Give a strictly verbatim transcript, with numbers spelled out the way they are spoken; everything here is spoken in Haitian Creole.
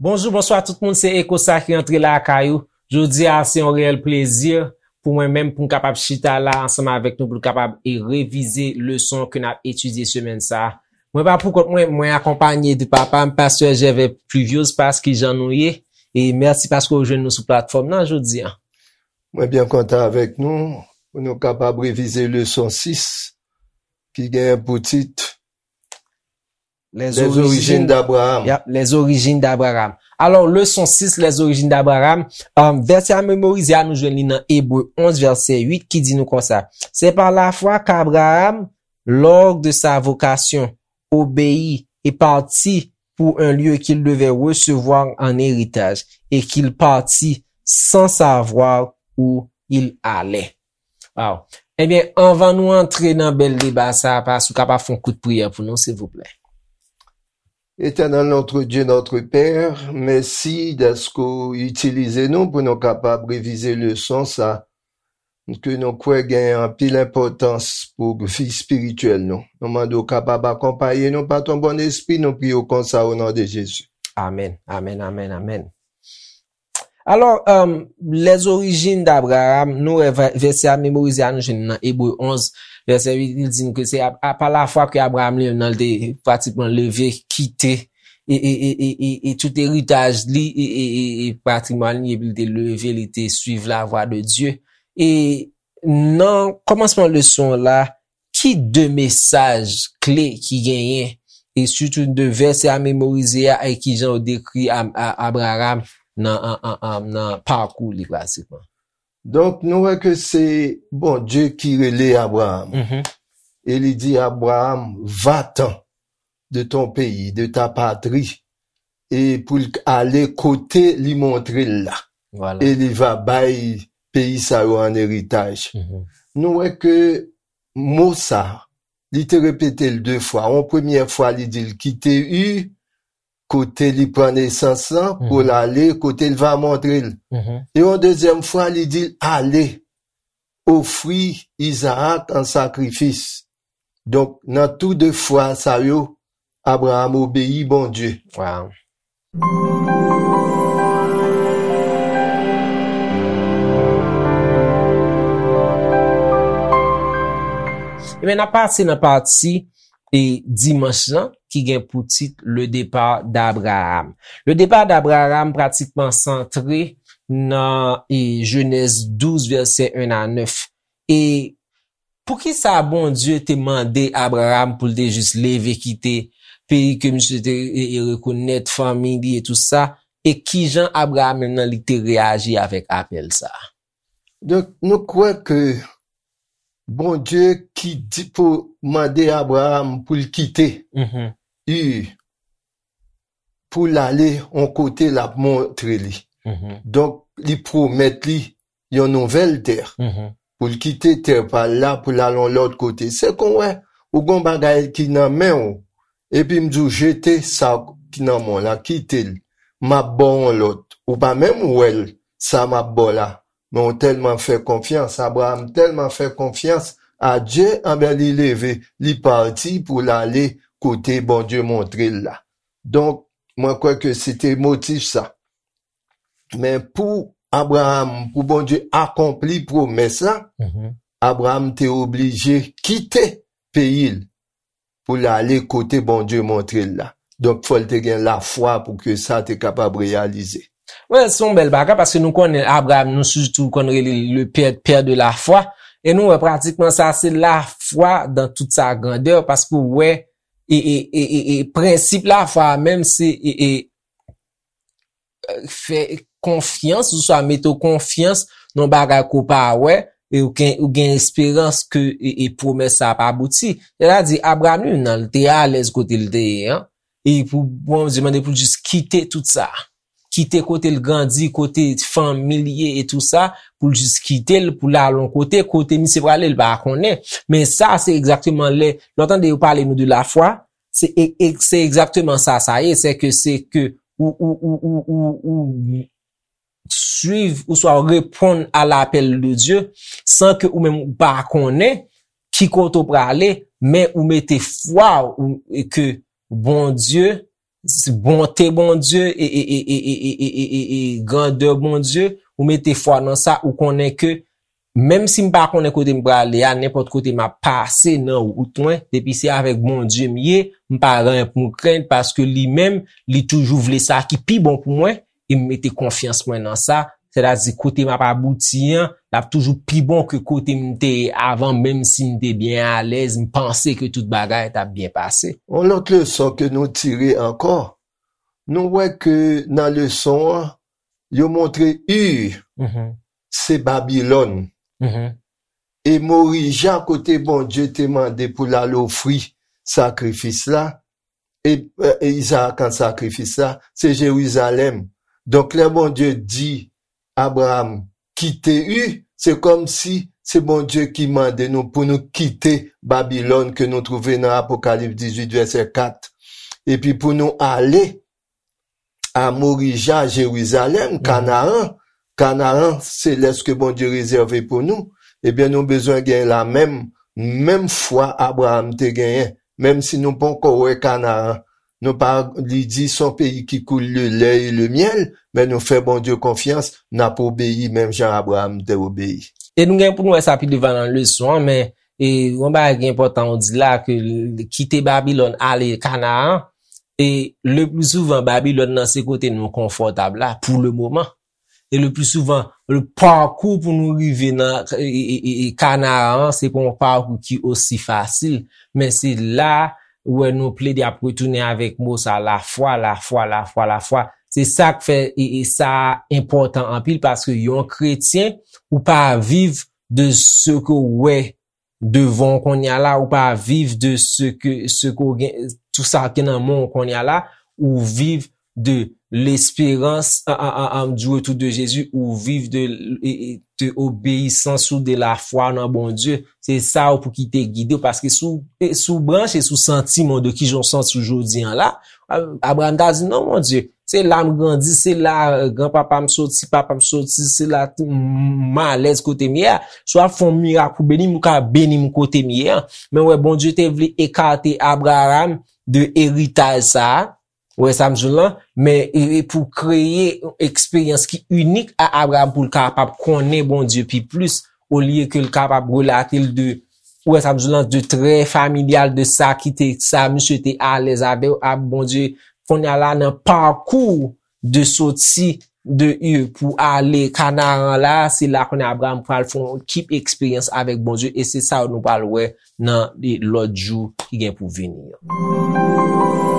Bonjou, bonswa tout moun, se Eko sa ki antre lakay ou. Jodi a, se yon reyèl plezi pou mwen menm pou m kapab chita la ansanm avèk nou pou n kapab e revize leson ke n ap etidye semèn sa a. Mwen pa pou kont mwen, mwen akonpanye de papa m, pastè Jèvè Pluviose, pas ki jan nou ye. E mèsi paske w jwenn nou sou platfòm nan jodi a. Mwen byen kontan avèk nou pou nou kapab revize leson sis ki gen pou tit Les origines d'Abraham. Yep, les origines d'Abraham. Alò, leson sis, les origines d'Abraham, um, vèsè a memorize a, nou jwenn li nan Ebre onz, vèsè uit, ki di nou konsa: C'est par la foi qu'Abraham, lors de sa vocation, obéit et partit pour un lieu qu'il devait recevoir en héritage, et qu'il partit sans savoir où il allait. Wow. Ebyen, anvan nou antre nan bèl deba sa a, pas ou kapab fè yon kout priyè pou nou, silvouplè? Éternel notre Dieu, notre Père, mèsi dèske w itilize nou pou nou kapab revize leson sa ke nou kwè gen anpil enpòtans pou vi espirityèl nou. Nou mande w kapab akonpaye nou pa ton bon espri, nou priye w konsa o non de Jezi. Amèn, amèn, amèn, amèn. Alò, um, les origines d'Abraham, nou wè vè- vèsè a memorize a nou jwenn nan Ebre onz, vèsè uit, li di n ke se a, a, pa lafwa ke Abraham li menm nan li te pratikman leve, kite, e, e, e, e, e, e tout eritaj li, e, e, e, e patrimwàn li, epi li te leve, li te suiv lavwa de Dye. E nan kòmansman leson la, ki de mesaj kle ki genyen, e sitou de vèsè a memorize a, e ki jan yo dekri A- A- Abraham nan, an- an- an- nan pakou li pratikman? Donk, nou wè ke se Bondye ki rele Abraham. Mhm. E li di, Abraham, va-t'en de ton pays, de ta patrie, e pou l ale kote li montre l la. Voilà. E li va bay peyi sa yo an eritaj. Mhm. Nou wè ke mo sa, li te repete l de fwa. Yon premyè fwa, li di l kite Ur, kote li pran nesans lan, pou l ale kote l va montre l. Mhm. E yon dezyèm fwa, li di l ale, ofri Izaak an sakrifis. Donk, nan tou de fwa sa yo, Abraham obeyi Bondye. Wow. Ebyen, n ap pase nan pati e dimanch lan ki gen pou tit Le départ d'Abraham. Le départ d'Abraham pratikman santre nan e Jenèz douz, vèsè en a nèf. E poukisa Bondye te mande Abraham pou l te jis leve kite peyi ke misye te e, e rekonèt, fanmi li e tout sa? E kijan Abraham menm nan li te reyaji avèk apèl sa a? Donk, nou kwè ke Bondye ki di pou mande Abraham pou l kite Mhm. Ur, pou l ale yon kote l ap montre li. Mhm. Donk, li pwomèt li yon nouvèl tè. Mhm. Pou l kite tè pa l la, pou l al yon lòt kote. Se kon wè, ou gon bagay ki nan men w, epi m di w jete sa ki nan men w la, kite l. M ap ba w yon lòt. Ou pa menm wè l, sa m ap ba w la. Men w tèlman fè konfyans, Abraham tèlman fè konfyans a Dye, anben li leve, li pati pou l ale kote Bondye montre l la. Donk, mwen kwè ke se te motif sa. Men pou Abraham, pou Bondye akonpli pwomès la, Mhm. Abraham te oblije kite peyi l pou l ale kote Bondye montre l la. Donk, fò l te gen lafwa pou ke sa te kapab reyalize. Wè, se yon bèl bagay, paske nou konnen Abraham, nou sitou konn rele l le père, père de la foi. E nou wè pratikman sa, se lafwa dan tout sa grandè, paske w wè, e, e, e, e, e prensip lafwa a menm, se, e, e, fè konfyans, oswa mete w konfyans nan bagay ke w pa wè, e ou gen, ou gen esperans ke, e, e pwomès sa ap abouti. Sètadi, Abraham li menm nan, li te alèz kote l te ye an, e pou Bondye mande pou l jis kite tout sa. Kite kote l grandi, kote fanmi l ye e tou sa, pou l jis kite l, pou l al yon kote, kote misye prale, l pa konnen. Men sa, se egzakteman lè, lè w tande yo pale nou de lafwa, se e, e, se egzakteman sa sa ye, se ke, se ke ou, ou, ou, ou, ou, ou suiv, oswa w reponn a lapèl de Dye, san ke ou menm ou pa konnen ki kote w prale, men ou mete fwa w, e ke Bondye s- bonte Bondye e, e, e, e, e, e, e, e, e, e grandè Bondye, ou mete fwa nan sa, ou konnen ke menm si m pa konnen kote m prale a, nenpòt kote m ap pase nan wout mwen, depi se avèk Bondye m ye, m pa gen anyen pou m krenn, paske li menm, li toujou vle sa ki pi bon pou mwen, e m mete konfyans mwen nan sa, sètadi kote m ap abouti an, l ap toujou pi bon ke kote m te ye avan, menm si m te byen alèz, m panse ke tout bagay t ap byen pase. Yon lòt leson ke nou tire ankò, nou wè ke nan leson an, yo montre Ur, Mhm. se Babilòn. Mhm. E Morija, kote Bondye te mande pou l al ofri sakrifis la, e, e Izarak an sakrifis la, se Jerizalèm. Donk, lè Bondye di Abraram kite Ur, se kòmsi se Bondye ki mande nou pou nou kite Babilòn ke nou twouve nan Apokalips dizuit, vèsè kat. Epi pou nou ale a Morija, Jerizalèm, Mhm. Kanaran, Kanaran selès ke Bondye rezève pou nou, ebyen, nou bezwen gen la menm, menm fwa Abraram te genyen, menm si nou poko wè Kanaran. Nou pa, li di, se yon peyi ki koule le lè e le myèl, men nou fè Bondye konfyans, n ap obeyi menm jan Abraram te obeyi. E nou gen pou nou wè sa pi devan nan leson an, men, e, yon bagay ki enpòtan ou di la, ke l- kite Babilòn, ale Kanaran, e le pli souvan, Babilòn nan se kote nou konfòtab la, pou le moman. E le pli souvan, le pakou pou nou rive nan e, e, e, e Kanaran, se pa yon pakou ki osi fasil. Men se la, ou wè nou plede ap retounen avèk mo sa, lafwa, lafwa, lafwa, lafwa. Se sa k fè e, e sa enpòtan anpil, paske yon kretyen, ou pa viv de se ke w wè devan w kounye a la, ou pa viv de se ke, se ke w gen, tout sa ki nan men w kounye a la, ou viv de l'espérance, a, a, a, a, du retour de Jésus, ou viv de, e, e, de obéissance ou de la foi nan Bondye. Se sa ou pou ki te gide w, paske si w, e, si w branche sou santiman de kijan w santi w jodi an la, a, Abraham ta di, non, Bondye, se la m grandi, se la, e, granpapa m soti, papa m soti, se la m, m alèz kote m ye a. Si w ap fè yon mirak pou beni m, ou ka beni m kote m ye a. Men wè, Bondye te vle ekate Abraham de eritaj sa a, ou wè sa m di w lan, men e, e pou kreye yon eksperyans ki inik a Abraham pou l kapab konnen Bondye pi plis, olye ke l kapab relate l de, ou wè sa m di w lan, de trè familyal de sa ki te, sa misye te alèz avè w, a Bondye, kounye a la nan pakou de soti de Ur pou ale Kanaran la, se la kounye a Abraham pral fè yon ekip eksperyans avèk Bondye, e se sa nou pral wè nan lòt jou ki gen pou vini an.